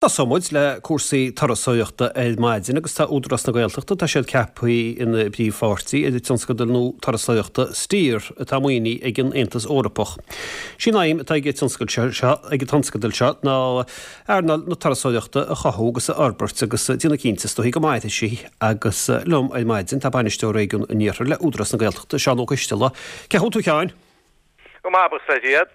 Tosóidh muid le cúrsaí turasóireachta ar maidin agus tá Údarás na Gaeltachta, tá siad ceaptha ina bpríomhpháirtí ar an tionscadal nua turasóireachta Steer atá maoinithe ag an Aontas Eorpach. Sí an aidhm atá ag an tionscadal seo ag an tionscadal seo ná earnáil na turasóireachta a chothú agus a fhorbairt agus déanamh cinnte is dóichí go mairfidh sí agus liom ar maidin tá Bainisteoir Réigiún an Iarthair le Údarás na Gaeltachta, Seán Ó Coisteala. Cén chaoi a bhfuil tú a Sheáin? Go maith, buíochas le Dia.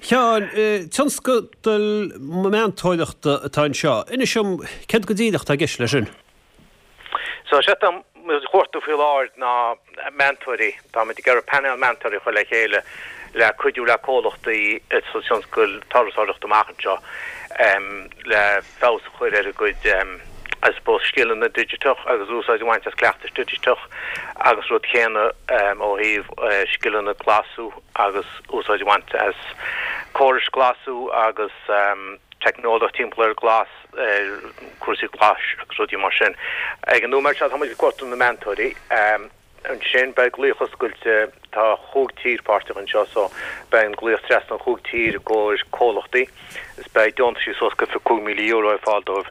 Sheáin, tionscadal meantóireachta atá anseo. Inis dom, céard go díreach atá i gceist leis sin? So, sé atá muid a chuartú faoi láthair ná meantóirí. Táimid ag iarraidh painéal meantóirí a chur le chéile le cuidiú le comhlachtaí sa tionscal turasóireachta amach anseo le feabhas a chur ar a gcuid, I suppose, scileanna digiteach agus úsáid a bhaint as cleachtais digiteach agus rud céanna ó thaobh scileanna glasú agus úsáid a bhaint as córais glasú agus teicneolaíocht timpeall ar glas, ar cúrsaí glais agus rudaí mar sin. Ag an nóiméad seo tá muid ag cuartú na meantóirí. Ansin beidh glaoch oscailte, tá chúig tír páirteach anseo so beidh an glaoch trasna an chúig tír i gcomhair comhlachtaí is beidh deontaisí suas go €25,000 ar fáil dóibh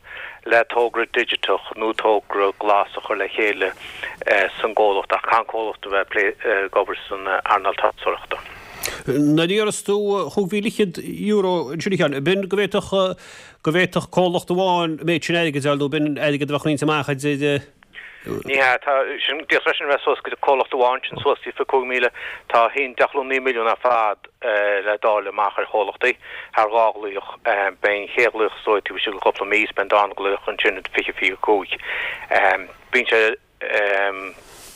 le togra digiteach nó togra glas a chur le chéile san gcomhlacht ach caithfidh an comhlacht a bheith ag obair san earnáil turasóireachta. Nuair a deireas tú €25,000 ansin a Sheáin, b'in go bhféadfadh go bhféadfadh comhlacht amháin an méid sin airgid a fháil nó b'in airgead a bheadh roinnte amach idir Ní hea, tá sin, d'fhéadfadh freisin a bheith suas go dtí comhlacht amháin, sin suas go dtí 25,000. Tá 1.9 milliún ar fad le dáileadh amach ar chomhlachtaí thar dhá ghlaoch. Beidh an chéad ghlaoch is dóigh taobh istigh de chúpla mí is beidh an darna glaoch ansin i 2025. Bíonn sé,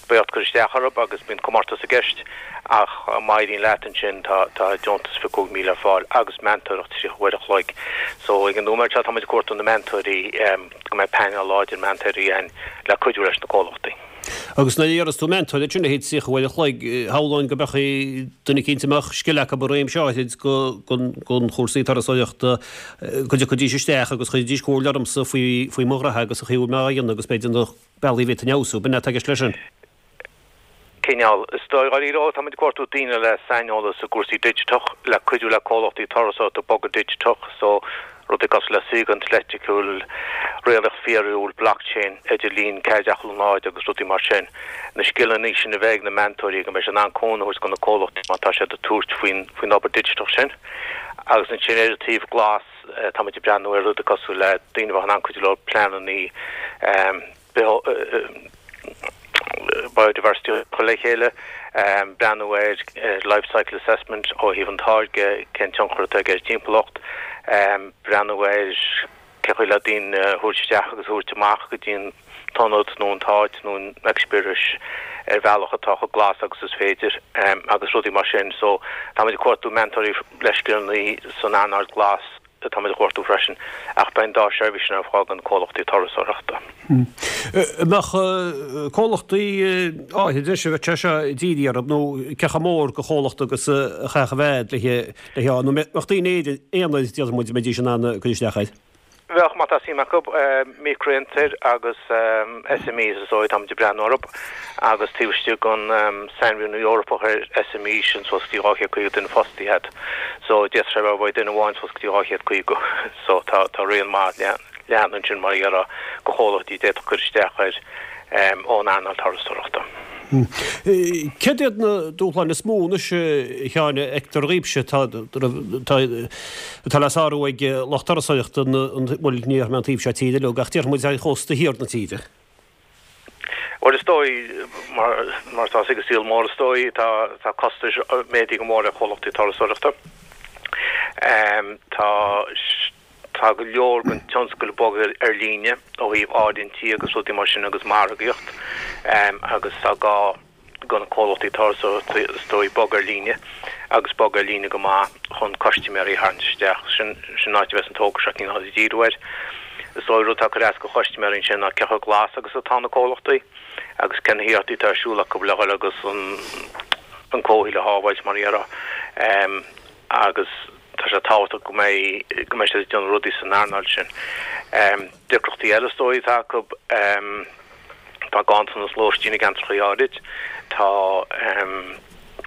beidh ort cur isteach orthu agus bíonn comórtas i gceist ach má éiríonn leat ansin tá deontas 25,000 ar fáil agus meantóireacht 30 uair a chloig. So ag an nóiméad seo tá muid ag cuartú na meantóirí. go mbeidh painéal láidir meantóirí ann le cuidiú leis na comhlachtaí. Agus nuair a deireas tú meantóir, sin a leithéid 30 uair a chloig, shamhlóinn go mbeadh duine eicínt a mbeadh scil acu i réimse áithrid de chúrsaí turasóireachta, go dtiocfaidís isteach agus chuirfidís comhairle ormsa faoi mo ghraithe agus an chaoi a bhfuil mé á dhéanamh agus b'fhéidir na bealaí a bhféadfainn a fheabhsú. B'in é atá i gceist leis sin. Cineál. Is dóigh, dháiríre, ó, táimid ag cuartú daoine le saineolas i gcúrsaí digiteach, le cuidiú le comhlachtaí turasóireachta bogadh digiteach, so rudaí cosúil le saorgaint leictriciúil, réaltacht fíorúil, blockchain, idirlíon 4.0 agus rudaí mar sin. Na scileanna sin a bheith ag na meantóirí go mbeidh siad in ann cúnamh a thabhairt do na comhlachtaí má tá siad ag tabhairt faoin faoin obair digiteach sin. Agus ansin ar an taobh glas, táimid ag breathnú ar rudaí cosúil le daoine a bheadh in ann cuidiú leo pleananna biodiversity a chur le chéile, breathnú ar life cycle assessment ó thaobh an táirge, cén tionchar atá aige ar an timpeallacht, breathnú ar cén chaoi le daoine a thabhairt isteach agus a thabhairt amach go dtí an t-ionad nó an t-áit nó an eispéireas ar bhealach atá chomh glas agus is féidir agus rudaí mar sin. So táimid ag cuartú meantóirí le scileanna san earnáil glas. Táimid a chuartú freisin, ach beidh an dá sheirbhís sin ar fáil do na comhlachtaí turasóireachta. An mbeadh comhlachtaí áirithe anois a bheadh sé seo dírithe orthu, nó cé chomh mór de chomhlacht agus a chaithfeadh a bheith le hé, nó mbeadh daoine aonair, déarfaidh muid, a mbeidís in ann cur isteach air? Bheadh, má tá suim acu, micreafhiontair agus SMEs is dóigh, táimid ag breathnú orthu, agus taobh istigh den sainmhíniú Eorpach ar SME, sin suas go dtí 250 duine fostaithe agat. So, d'fhéadfadh sé a bheith ó duine amháin suas go dtí 250. So, tá tá raon maith leathan ansin mar a déarfá de chomhlachtaí a d'fhéadfadh cur isteach air ón earnáil turasóireachta. Céard iad na dúshláin is mó anois, a Sheáin, a fheictear dhaoibhse atá atá le sárú ag lucht turasóireachta, bhuel, ní déarfaidh mé an taobh seo tíre uilig, ach déarfaidh muid ar chósta thiar na tíre? Bhuel, is dóigh, mar mar atá sa saol mór, is dóigh, tá tá costais méadaithe go mór ar chomhlachtaí turasóireachta. Tá Tá go leor den tionscal ag bogadh ar líne ó thaobh áirithintí agus rudaí mar sin agus margaíocht agus tá gá do na comhlachtaí turasóireachta is dóigh bogadh ar líne agus bogadh ar líne go maith chun custaiméirí a tharraingt isteach. Sin an áit a bheas an togra seo cineál ag díriú air. Is dóigh rud atá ag cur as do chustaiméirí ansin ná cé chomh glas agus atá na comhlachtaí agus cé na hiarrachtaí atá ar siúl acu le dhul agus an comhshaol a shábháilt mar a déarfá agus Tá sé tábhachtach go mbeidh, go mbeidh siad ag déanamh rudaí san earnáil sin. Deacrachtaí eile is dóigh atá acu, tá ganntanas lóistín i gceantracha áirid, tá.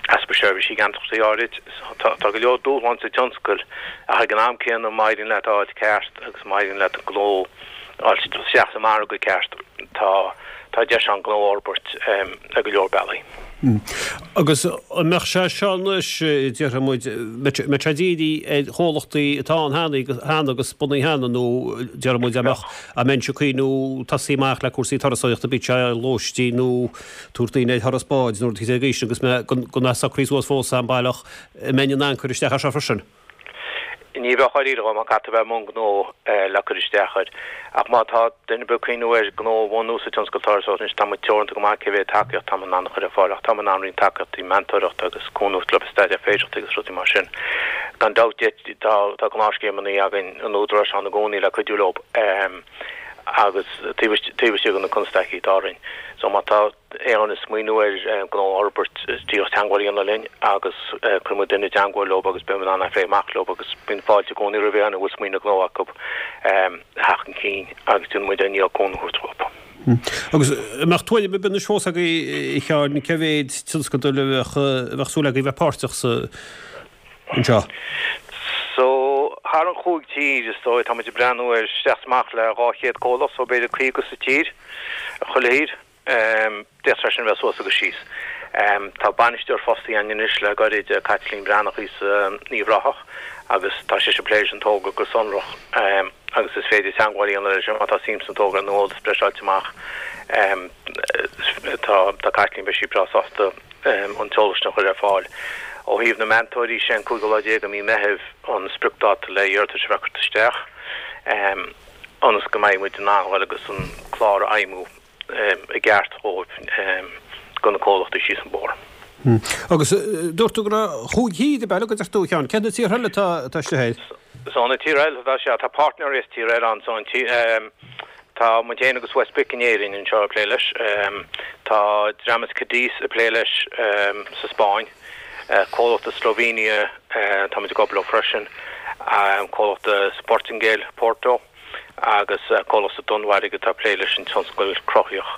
Easpa seirbhísí i gceantracha áirid. Tá go leor dúshlán sa tionscal ach ag an am céanna má éiríonn leat a fháil ceart agus má éiríonn leat an gnó a fháil isteach sa margadh ceart tá tá deis ann gnó a fhorbairt ar go leor bealaí. Agus an mbeadh sé seo anois, déarfaidh muid, mbeadh sé dírithe ar chomhlachtaí atá ann cheana agus bunaithe cheana nó déarfaidh muid an mbeadh, an mbeinnse ag cuimhniú tosaí amach le cúrsaí turasóireachta, bíodh sé lóistín nó tabhairt daoine ar thuras báid nó rud éicint de sin agus mé gan é socraithe suas fós a'm baileach, an mbeinn in ann cur isteach air seo freisin? Ní bheadh dáiríre, má caithfidh tú a bheith i mbun gnó le cur isteach air. Ach má tá duine ar bith ag cuimhniú ar gnó a bhunú sa tionscal turasóireachta anois, tá muid teoranta go maith cé mhéad tacaíocht tá muid in ann a chur ar fáil ach tá muid in ann roinnt tacaíochtaí, meantóireachta agus cúnamh le staidéar féidearthachtaí agus rudaí mar sin. Gan dabht tá tá gnáthscéimeanna againn an Údaráis ann i gcónaí le cuidiú leo agus taobh istigh de na constaicí atá orainn. So má tá aon duine ag smaoineamh ar gnó a fhorbairt, díreach teagmháil a dhéanamh linn agus cuirfidh muid duine i dteagmháil leo agus beidh muid in ann é a phlé amach leo agus bíonn fáilte i gcónaí roimh aon duine a bhfuil smaoineamh gnó acu a theacht chun cinn agus déanfaidh muid ár ndícheall cúnamh a thabhairt dóibh. Agus an mbeadh tuairim ar bith anois fós agaibh, a Sheáin, cé mhéid tionscadal a bheadh súil agaibh bheith páirteach sa anseo? So, thar an chúig tír, is dóigh, tá muid ag breathnú ar isteach is amach le 200 comhlacht, so b'fhéidir 50 sa tír, chuile thír. D'fhéadfadh sé sin a bheith suas agus síos. Tá bainisteoir fostaithe againn anois le gairid, Caitlín Breathnach í as Uíbh Ráthach, agus tá sise ag plé leis an togra go sonrach agus is féidir teagmháil a dhéanamh leis má tá suim sa togra nó eolas breise a fháilt amach. Tá Caitlín, beidh sí breá sásta an t-eolas sin a chur ar fáil. Ó thaobh na meantóirí, sé an cúigiú lá déag de mhí Meithimh an spriocdáta le iarratais a bheith curtha isteach ionas go mbeidh muid in ann dhul agus an clár a fheidhmiú i gceart dhóibh do na comhlachtaí síos an bóthar. Agus dúirt tú go raibh chúig thír ab ea, a deir tú, a Sheáin. Cé na tíortha eile atá istigh air? So na tíortha eile atá sea, tá páirtnéirí as tíortha eile ann. So an tí, tá muid féin agus WestBIC in Éirinn anseo ag plé leis. Tá dream as Cadiz ag plé leis sa Spáinn. Comhlacht as Slovenia, tá muid ag obair leo freisin. Comhlacht as Portaingéil, Porto. agus comhlacht sa Danmhairg atá ag plé leis an tionscal cruthaitheach.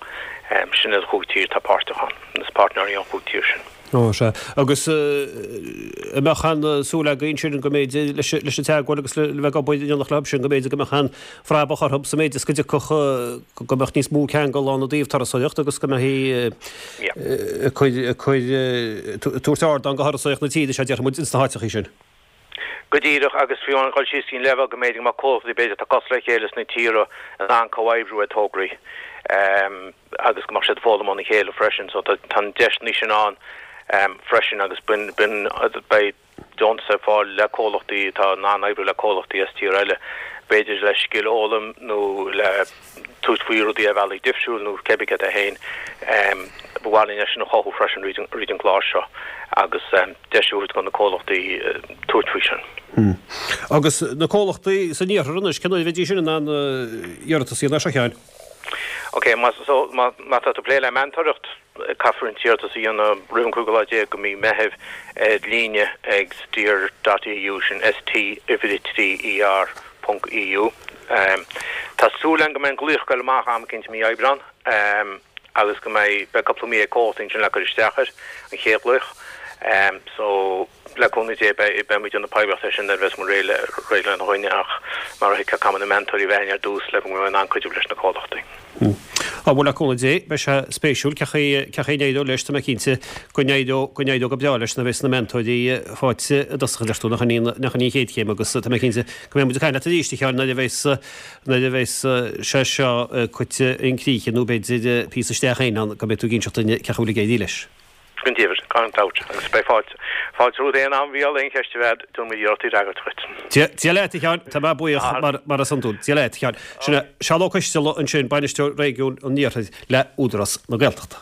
Sin iad an chúig tír atá páirteach ann, is páirtnéirí ón chúig tír sin. Ó, sea. Agus an mbeadh aon súil agaibh ansin go mb'fhéidir leis an teagmháil agus le bheith ag obair in éineacht leo sin, go mb'fhéidir go mbeadh aon phrabach orthu sa méid is go dtiocfadh, go mbeadh níos mó ceangal ann i dtaobh turasóireacht agus go mbeifí ag cur, ag cur, tabhairt ardán do thurasóireacht na tíre seo, déarfaidh muid, ins na háiteachaí sin. Go díreach, agus fiú amháin dhul síos go dtí an leibhéal go mb'fhéidir go mbeadh comhlachtaí b'fhéidir atá cosúil le chéile sna tíortha in ann comhoibriú ar tograí agus go mbeadh siad ag foghlaim óna chéile freisin. So tá na deiseanna sin ann freisin agus bíonn, beidh deontas ar fáil le comhlachtaí atá in ann oibriú le comhlachtaí as tír eile, b'fhéidir le scil a fhoghlaim nó le. tabhairt faoi rudaí ar bhealaí difriúil nó cébí céard é féin. Ba mhaith linn é sin a chothú freisin fríd an gclár seo agus deis a thabhairt do na comhlachtaí tabhairt faoi sin. Agus na comhlachtaí san iarthar anois, cén uair a bheidís sin in ann iarratas a dhéanamh air seo, a Sheáin? Ok, má tá tú ag plé le meantóireacht, Caithfear an t-iarratas a dhéanamh roimh an cúigiú lá déag de mhí Meithimh ar líne ag steer dot EU, sin ST uimhir 3 ER ponc EU. Tá súil againn go mbeidh an glaoch ag goil amach am eicínt i mí Aibreán agus go mbeidh, beidh cúpla mí ag comhlachtaí ansin le cur isteach air, an chéad ghlaoch. So. Le cúnamh Dé, beidh muid ag déanamh poiblíocht air sin nuair a bheas muid réidh le réidh lena choinne ach mar a thuigfeá caithfidh muid na meantóirí a bheith againn ar dtús le go mbeidh muid in ann cuidiú leis na comhlachtaí. Á bhuel le cúnamh Dé, beidh sé spéisiúil cén chaoi cén chaoi a n-éireoidh leis, tá mé cinnte go n-éireoidh go n-éireoidh go breá leis nuair a bheas na meantóirí faighte i dtosach a deir tú, nach in í nach in í an chéad chéim agus tá mé cinnte go mbeidh muid ag caint leat arís a Sheáin nuair a bheas nuair a bheas sé seo curtha chun críche nó b'fhéidir píosa isteach féin ann go mbeidh tú ag inseacht dúinn cén chaoi a bhfuil ag éirí leis. Go deimhin, gan dabht, agus beidh fáilte, fáilte romhat aon am a Mhícheáil, aon cheist a bheadh agat, déanfaidh muid iarracht í a fhreagairt dhuit. Dia, Dia leat, a Sheáin, tá mé buíoch mar, mar is iondúil. Dia leat, a Sheáin. Sin é Seán Ó Coisteala ansin, Bainisteoir Réigiún an Iarthair le Údarás na Gaeltachta.